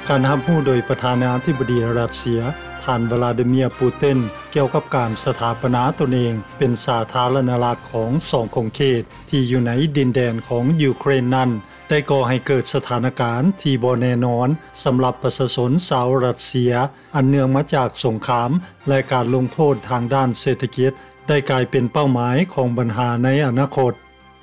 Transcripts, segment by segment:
ການຮັບຮູ້ໂດຍປະທານາທິບໍດີຣັດເຊຍ ທ່ານ ວລາດີເມຍ ປູຕິນ ກ່ຽວກັບການສະຖາປະນາຕົນເອງເປັນສາທາລະນະລັດຂອງສອງຂົງເຂດທີ່ຢູ່ໃນດິນແດນຂອງຢູເຄຣນນັ້ນ ໄດ້ກໍ່ໃຫ້ເກີດສະຖານະການທີ່ບໍ່ແນ່ນອນສຳລັບປະຊາຊົນຊາວຣັດເຊຍ ອັນເນື່ອງມາຈາກສົງຄາມ ແລະ ການລົງໂທດທາງດ້ານເສດຖະກິດ ໄດ້ກາຍເປັນເປົ້າໝາຍຂອງບັນຫາໃນອະນາຄົດ.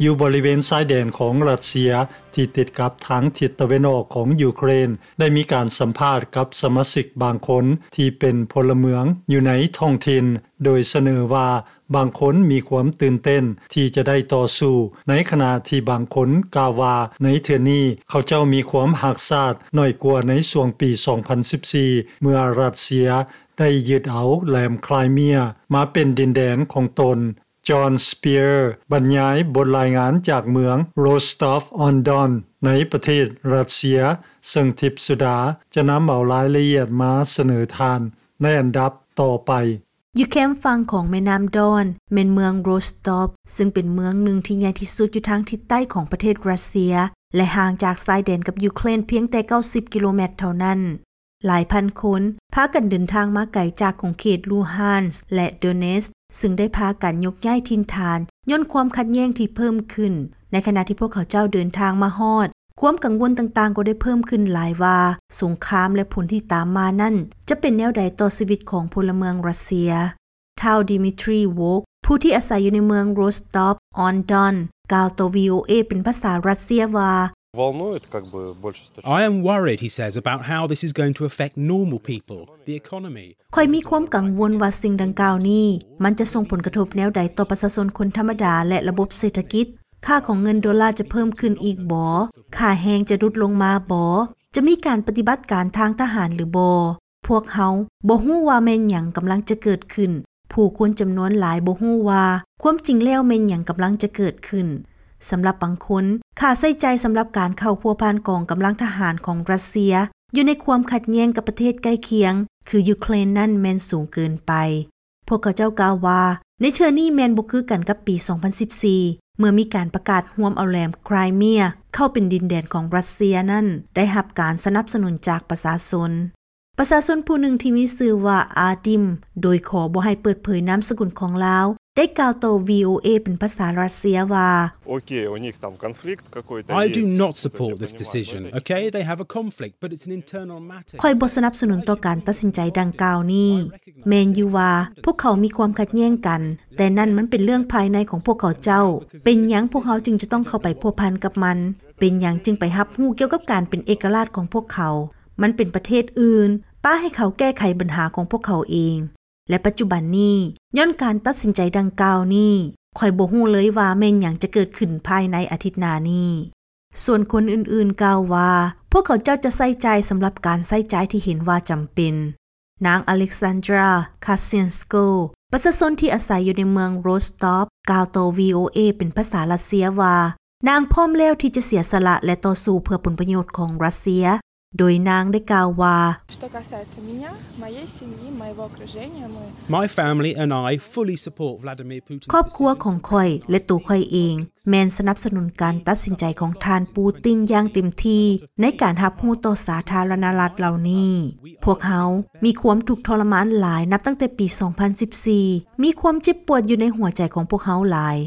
ຢູ່ບໍລິເວນຊາຍແດນຂອງຣັດເຊຍທີ່ຕິດກັບທາງທິດຕາເວັນອອກຂອງຢູເຄຣນ ໄດ້ມີການສຳພາດກັບສະມາຊິກບາງຄົນທີ່ເປັນພົນລະເມືອງຢູ່ໃນທ້ອງຖິ່ນ ໂດຍສະເໜີວ່າບາງຄົນມີຄວາມຕື່ນເຕັ້ນທີ່ຈະໄດ້ຕໍ່ສູ້ ໃນຂະນະທີ່ບາງຄົນກ່າວວ່າໃນເທື່ອນີ້ເຂົາເຈົ້າມີຄວາມຮັກຊາດໜ້ອຍກວ່າໃນຊ່ວງປີສອງພັນສິບສີ່ ເມື່ອຣັດເຊຍໄດ້ຍຶດເອົາແຫຼມຄຣາຍເມຍມາເປັນດິນແດນຂອງຕົນ. ຈອນ ສະເປຍ ບັນຍາຍບົດລາຍງານຈາກເມືອງ Rostov-on-Don ໃນປະເທດຣັດເຊຍ ເຊິ່ງທິບສຸດາຈະນຳເອົາລາຍລະອຽດມາສະເໜີທ່ານໃນອັນດັບຕໍ່ໄປ. ຢູ່ແຄມຝັ່ງຂອງແມ່ນ້ຳດອນ ແມ່ນເມືອງໂຣສຕອບ ເຊິ່ງເປັນເມືອງໜຶ່ງທີ່ໃຫຍ່ທີ່ສຸດຢູ່ທາງທິດໃຕ້ຂອງປະເທດຣັດເຊຍ ແລະ ຫ່າງຈາກຊາຍແດນກັບຢູເຄຣນພຽງແຕ່ເກົ້າສິບກິໂລແມັດເທົ່ານັ້ນ. ຫຼາຍພັນຄົນພາກັນເດີນທາງມາໄກຈາກຂົງເຂດລູຮານສ ແລະ ໂດເນດສ ຊຶ່ງໄດ້ພາກັນຍົກຍ້າຍຖິ່ນຖານຍ້ອນຄວາມຂັດແຍ່ງທີ່ເພີ່ມຂຶ້ນ. ໃນຂະນະທີ່ພວກເຂົາເຈົ້າເດີນທາງມາຮອດ, ຄວາມກັງວົນຕ່າງໆກໍໄດ້ເພີ່ມຂຶ້ນຫຼາຍວ່າ ສົງຄາມ ແລະ ຜົນທີ່ຕາມມານັ້ນຈະເປັນແນວໃດຕໍ່ຊີວິດຂອງພົນລະເມືອງຣັດເຊຍ. ທ້າວ ດິມິທຣີ ໂວກ ຜູ້ທີ່ອາໄສຢູ່ໃນເມືອງ Rostov-on-Don ກ່າວຕໍ່ ວີໂອເອ ເປັນພາສາຣັດເຊຍວ່າ Волнует, как бы, больше с точки зрения. I am worried, he says, about how this is going to affect normal people, the economy. ຂ້ອຍມີຄວາມກັງວົນວ່າສິ່ງດັ່ງກ່າວນີ້ ມັນຈະສົ່ງຜົນກະທົບແນວໃດຕໍ່ປະຊາຊົນຄົນທຳມະດາ ແລະ ລະບົບເສດຖະກິດ? ຄ່າຂອງເງິນໂດລາຈະເພີ່ມຂຶ້ນອີກບໍ? ຄ່າແຮງຈະຫຼຸດລົງມາບໍ? ຈະມີການປະຕິບັດການທາງທະຫານຫຼືບໍ່? ພວກເຮົາບໍ່ຮູ້ວ່າແມ່ນຫຍັງກຳລັງຈະເກີດຂຶ້ນ. ຜູ້ຄົນຈຳນວນຫຼາຍບໍ່ຮູ້ວ່າຄວາມຈິງແລ້ວແມ່ນຫຍັງກຳລັງຈະເກີດຂຶ້ນ. ສຳລັບບາງຄົນ, ຄ່າໃຊ້ຈ່າຍສຳລັບການເຂົ້າພົວພັນກອງກຳລັງທະຫານຂອງຣັດເຊຍຢູ່ໃນຄວາມຂັດແຍ່ງກັບປະເທດໃກ້ຄຽງ ຄື ຢູເຄຣນນັ້ນແມ່ນສູງເກີນໄປ. ພວກເຂົາເຈົ້າກ່າວວ່າ ໃນເທື່ອນີ້ແມ່ນບໍ່ຄືກັນກັບປີສອງພັນສິບສີ່ ເມື່ອມີການປະກາດຮວມເອົາແຫຼມຄຣາຍເມຍເຂົ້າເປັນດິນແດນຂອງຣັດເຊຍນັ້ນ ໄດ້ຮັບການສະໜັບສະໜູນຈາກປະຊາຊົນ. ປະຊາຊົນຜູ້ໜຶ່ງທີ່ມີຊື່ວ່າ ອາດິມ ໂດຍຂໍບໍ່ໃຫ້ເປີດເຜີຍນາມສະກຸນຂອງລາວ ໄດ້ກ່າວຕໍ່ ວີໂອເອ ເປັນພາສາຣັດເຊຍວ່າ Окей, у них там конфликт какой-то есть. I do not support this decision, okay? They have a conflict, but it's an internal matter. ຂ້ອຍບໍ່ສະໜັບສະໜູນຕໍ່ການຕັດສິນໃຈດັ່ງກ່າວນີ້. ແມ່ນຢູ່ວ່າພວກເຂົາມີຄວາມຂັດແຍ່ງກັນ, ແຕ່ນັ້ນມັນເປັນເລື່ອງພາຍໃນຂອງພວກເຂົາເຈົ້າ. ເປັນຫຍັງພວກເຮົາຈຶ່ງຈະຕ້ອງເຂົ້າໄປພົວພັນກັບມັນ? ເປັນຫຍັງຈຶ່ງໄປຮັບຮູ້ກ່ຽວກັບການເປັນເອກະລາດຂອງພວກເຂົາ? ມັນເປັນປະເທດອື່ນ, ປະໃຫ້ເຂົາແກ້ໄຂບັນຫາຂອງພວກເຂົາເອງ. ແລະ ປັດຈຸບັນນີ້, ຍ້ອນການຕັດສິນໃຈດັ່ງກ່າວນີ້, ຂ້ອຍບໍ່ຮູ້ເລີຍວ່າແມ່ນຫຍັງຈະເກີດຂຶ້ນພາຍໃນອາທິດໜ້ານີ້. ສ່ວນຄົນອື່ນໆກ່າວວ່າ ພວກເຂົາເຈົ້າຈະໃຊ້ຈ່າຍສຳລັບການໃຊ້ຈ່າຍທີ່ເຫັນວ່າຈຳເປັນ. ນາງ ອາເລັກຊານດຣາ ຄາຊິນສໂກ ປະຊາຊົນທີ່ອາໄສຢູ່ໃນເມືອງໂຣສຕອບ ກ່າວຕໍ່ ວີໂອເອ ເປັນພາສາຣັດເຊຍວ່າ ນາງພ້ອມແລ້ວທີ່ຈະເສຍສະຫຼະ ແລະ ຕໍ່ສູ້ເພື່ອຜົນປະໂຫຍດຂອງຣັດເຊຍ, ໂດຍນາງໄດ້ກ່າວວ່າ Что касается меня, моей семьи, моего окружения, мы My family and I fully support Vladimir Putin's ຄອບຄົວຂອງຂ້ອຍ ແລະ ໂຕຂ້ອຍເອງ ແມ່ນສະໜັບສະໜູນການຕັດສິນໃຈຂອງທ່ານປູຕິນຢ່າງເຕັມທີ່ໃນການຮັບຮູ້ຕໍ່ສາທາລະນະລັດເຫຼົ່ານີ້. ພວກເຮົາມີຄວາມທຸກທໍລະມານຫຼາຍນັບຕັ້ງແຕ່ປີສອງພັນສິບສີ່ ມີຄວາມເຈັບປວດຢູ່ໃນຫົວໃຈຂອງພວກເຮົາຫຼາຍ.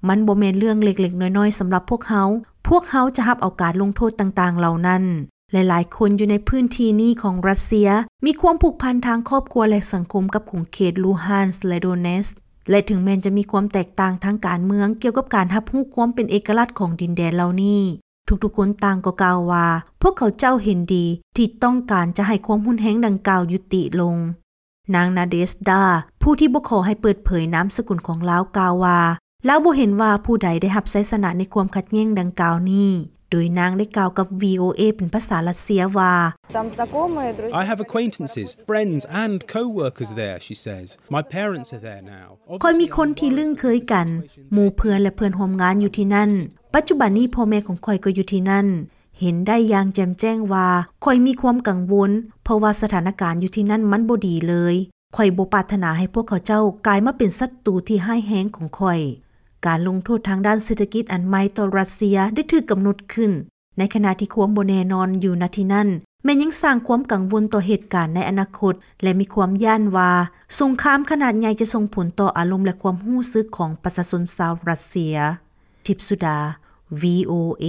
ມັນບໍ່ແມ່ນເລື່ອງເລັກໆນ້ອຍໆສຳລັບພວກເຮົາ. ພວກເຮົາຈະຮັບເອົາການລົງໂທດຕ່າງໆເຫຼົ່ານັ້ນ. ຫຼາຍໆຄົນຢູ່ໃນພື້ນທີ່ນີ້ຂອງຣັດເຊຍ ມີຄວາມຜູກພັນທາງຄອບຄົວ ແລະ ສັງຄົມກັບຂົງເຂດລູຮານສ ແລະ ໂດເນດສ ແລະ ເຖິງແມ່ນຈະມີຄວາມແຕກຕ່າງທາງການເມືອງກ່ຽວກັບການຮັບຮູ້ຄວາມເປັນເອກະລາດຂອງດິນແດນເຫຼົ່ານີ້, ທຸກໆຄົນຕ່າງກໍກ່າວວ່າ ພວກເຂົາເຈົ້າເຫັນດີທີ່ຕ້ອງການຈະໃຫ້ຄວາມຮຸນແຮງດັ່ງກ່າວຍຸຕິລົງ. ນາງ ນາເດສດາ ຜູ້ທີ່ບໍ່ຂໍໃຫ້ເປີດເຜີຍນາມສະກຸນຂອງລາວ ກ່າວວ່າ ລາວບໍ່ເຫັນວ່າຜູ້ໃດໄດ້ຮັບໄຊຊະນະໃນຄວາມຂັດແຍ່ງດັ່ງກ່າວນີ້, ໂດຍນາງໄດ້ກ່າວກັບ ວີໂອເອ ເປັນພາສາຣັດເຊຍວ່າ Там знакомые, друзья. I have acquaintances, friends and co-workers there, she says. My parents are there now. ຂ້ອຍມີຄົນທີ່ລຶ້ງເຄີຍກັນ, ໝູ່ເພື່ອນ ແລະ ເພື່ອນຮ່ວມງານຢູ່ທີ່ນັ້ນ. ປັດຈຸບັນນີ້ພໍ່ແມ່ຂອງຂ້ອຍກໍຢູ່ທີ່ນັ້ນ. ເຫັນໄດ້ຢ່າງແຈ່ມແຈ້ງວ່າຂ້ອຍມີຄວາມກັງວົນ, ເພາະວ່າສະຖານະການຢູ່ທີ່ນັ້ນມັນບໍ່ດີເລີຍ. ຂ້ອຍບໍ່ປາດຖະໜາໃຫ້ພວກເຂົາເຈົ້າກາຍມາເປັນສັດຕູທີ່ຮ້າຍແຮງຂອງຂ້ອຍ. ການລົງໂທດທາງດ້ານເສດຖະກິດອັນໃໝ່ຕໍ່ຣັດເຊຍໄດ້ຖືກກຳນົດຂຶ້ນ, ໃນຂະນະທີ່ຄວາມບໍ່ແນ່ນອນຢູ່ ນະ ທີ່ນັ້ນ ແມ່ນຍັງສ້າງຄວາມກັງວົນຕໍ່ເຫດການໃນອະນາຄົດ ແລະ ມີຄວາມຢ້ານວ່າສົງຄາມຂະໜາດໃຫຍ່ຈະສົ່ງຜົນຕໍ່ອາລົມ ແລະ ຄວາມຮູ້ສຶກຂອງປະຊາຊົນຊາວຣັດເຊຍ. ທິບສຸດາ ວີໂອເອ.